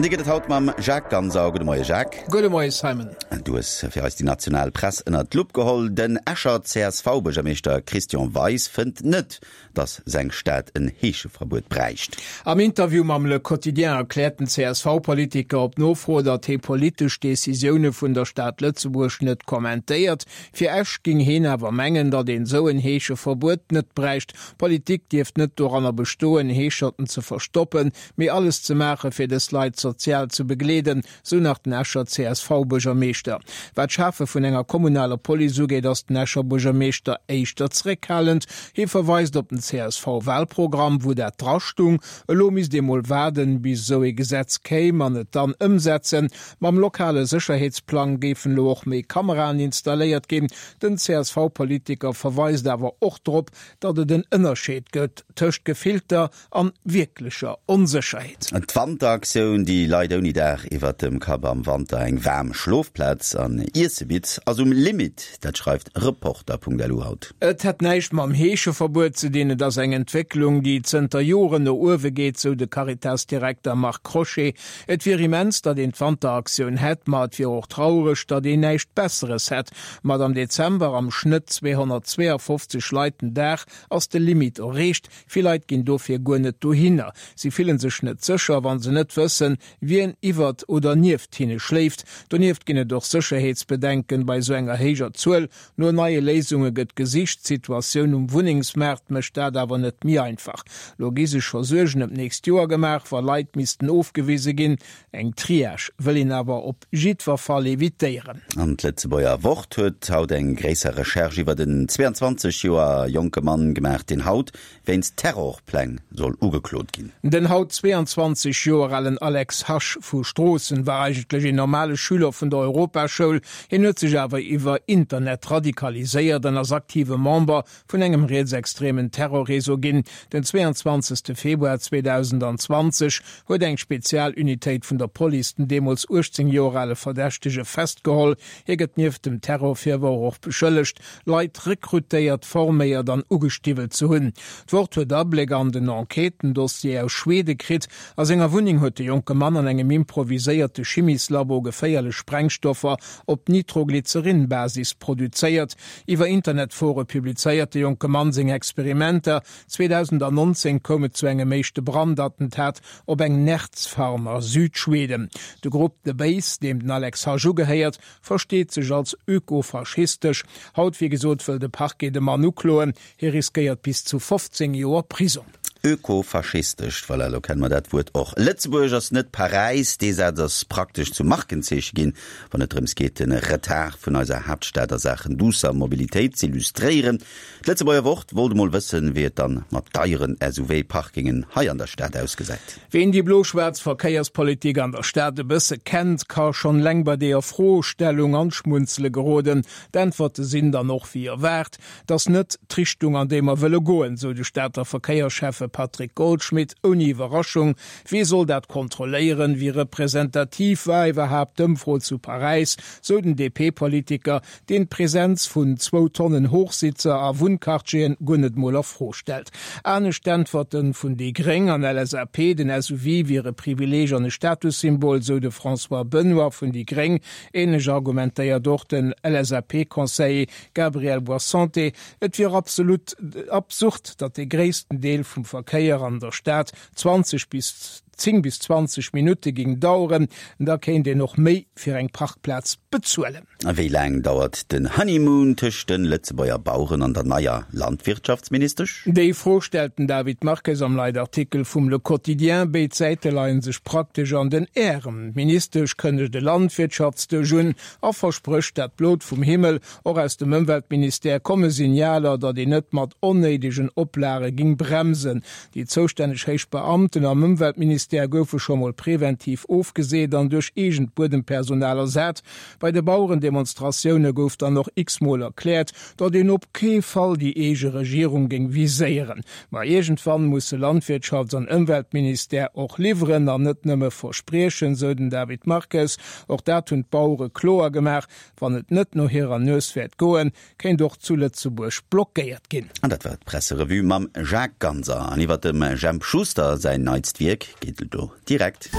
An déi gëtt et haut mam Jacques Ganser. Gudde Moie Jacques. Gudde Moie Simon. Du hues fir eis déi national Press ënnert d'Lupp geholl. Den Escher CSV-Buergermeeschter Christian Weis fënnt net, dass seng Stad en Heescheverbuet bräicht. Am Interview mam Le Quotidien erkläert den CSV-Politiker op Nofro, datt hee politesch Decisioune vun der Stad Lëtzebuerg net kommentéiert. Fir Esch géing heen awer mengen, datt een esou en Heescheverbuet net bräicht. Politik dierft net doranner bestoen, Heescherten ze verstoppen, mee alles ze maache fir dës Leit sozial ze begleeden, Sou nach den Escher CSV-Buergermeeschter. Wat d'Schafe vun enger kommunaler Police ugeet, ass den Escher Buergermeeschter éischter zeréckhalend. Hie verweist op den CSV-Walprogramm, wou dat drastung. Elo misst ee mol waarden, bis esou ee Gesetz kéim an et dann ëmsetzen. Mam lokale Sécherheetsplang géifen elo och méi Kameraen installéiert ginn. Den CSV-Politiker verweist awer och drop, datt et en Ënnerscheed gëtt tëscht gefillter an wierklecher Onsécherheet. D'Wanteraktioun, déi Leit ouni Daach iwwert dem Kapp am Wanter eng waarm Schlofplaz an Iesse bitt, ass um Limit. Dat schreift Reporter.lu haut. Et hätt näischt mam Heescheverbuet ze dinn, et ass eng Entwécklung, déi zënter Joren no uewe geet, sou de Caritas-Direkter Marc Crochet. Et wier immens, datt een d'Wanteraktioun hätt, ma et wier och traureg, datt een näischt Besseres hätt. Mat am Dezember am Schnëtt 252 Leit den Dag ass de Limit erreecht. Vill Leit ginn dofir guer net dohinner. Si fillen sech net sécher, wa se net wëssen, wien iwwert oder nieft hinne schléift. Donieft ginn et och Sécherheetsbedenken bei esou enger héijer Zuel. No neie Léisunge gëtt gesicht. D'Situatioun um Wunnengsmaart mécht dat awer net méi einfach. Lo gi sech scho Suergen ëm d'nächst Joer gemaach, wa Leit missten ofgewise ginn. Eng Triage wëll een awer op jiddwer Fall evitéieren. An d'Lëtzebuerger Wort huet haut eng gréisser Recherche iwwert en 22 Joer jonke Mann gemaach, deen haut wéinst Terrorpläng soll ugeklot ginn. Den haut 22 Joer alen Alex Hasch vu Stroossen war eigentlech een normale Schüler vun der Europaschoul. Hien huet sech awer iwwer Internet radikaliséiert an ass aktive Member vun engem rietsextremen Terrorreseau ginn. Den 22 Februar 2020 huet eng Spezialunitéit vun der Police den deemools 18 Joer ale Verdächtege festgeholl. Hie gëtt nieft dem Terrorvirworf och beschëllegt, Leit rekrutéiert, forméiert an ugestiwwelt ze hunn. D'Wort huet Abléck an den Enquêtendossier aus Schwede kritt. A senger Wunneng huet de jonke Mann an engem improviséierte Chimieslabo geféierlech Sprengstoffer op Nitroglycerin-Basis produzéiert. Iwwer Internetfore publizéiert de jonke Mann seng Experimenter. 2019 koum et zu engem éischte Brandattentat op eng Nerz-Farm a Südschweden. De Grupp The Base, deem den Alex Hasch ugehéiert, versteet sech als ökofaschistesch. Haut, wéi gesot, wëll de Parquet de Mann ukloen. Hie riskéiert bis zu 15 Joer Prisong. Ökofaschistesch, voilà, elo kenne mer dat Wuert och. Lëtzebuerg ass net Paräis, dee Saz ass praktesch zum Markenzeeche ginn, wann et drëms geet, de Retard vun eiser Haaptstad a Saachen duusser Mobilitéit z'illustréieren. D'Lëtzebuerger Wort wollt emol wëssen, wéi et dann mat deieren SUV-Parkingen hei an der Stad ausgesäit. Ween déi blo-schwaarz Verkéierspolitik an der Stad e bësse kennt, ka schonn eleng bei deeër Froestellung an d'Schmunzele geroden. D'Äntwerte sinn dann och wéi erwaart. 't ass net d'Richtung, an déi mer wëlle goen, sou de Stater Verkéierschäffe Patrick Goldschmidt ouni Iwwerraschung. Wee soll dat kontrolléieren? Wéi representativ war iwwerhaapt d'Ëmfro zu Paräis? sou den DP-Politiker, deen d'Presenz vun zwou Tonnen Hochsitzer a Wunnquartieren guer net mol a Fro stellt. Anescht d'Äntwerte vun déi Gréng an LSAP, den SUV wier e Privileeg an e Statussymbol, sou de François Benoy vun déi Gréng. Ähnlech argumentéiert och den LSAP-Conseiller Gabriel Boissanté, Et wier absolut absurd, datt dee gréissten Deel vum Verkéier an der Stad 20 bis 10 bis 20 Minutte géing daueren. Da kéint een och méi fir eng Parkplaz bezuelen. A wéi laang dauert den Honeymoon tëscht de Lëtzebuerger Baueren an der neier Landwirtschaftsministesch? Déi Fro stellt den David Marques am Leitartikel vum Le Quotidien. Béid Säite leie sech praktesch an den Ärem. D'Ministesch kënnegt e Landwirtschaftsdësch un a versprécht dat Blot vum Himmel. Och aus dem Ëmweltministère komme Signaler, datt een net mat onnéidegen Oplage ging bremsen. Déi zoustänneg héich Beamten am Ëmweltministère goufe scho mol preventiv ofgeseet an duerch eegent Buedempersonal ersat. Bei de Bauerendemonstratioune gouf dann och x-mol erkläert, datt een op kee Fall déi eege Regierung géing viséieren. Ma iergendwann musse Landwirtschafts an Ëmweltministère och liwweren an net nëmme verspriechen, sou den David Marques. Och dat hunn d'Bauere kloer gemaach, Wann et net no hirer Nues wäert goen, kéint och zu Lëtzebuerg blockéiert ginn. An dat war d'Presserevue mam Jacques Ganser. An iwwer dem Jemp Schuster säin neitst Wierk geet et elo direkt.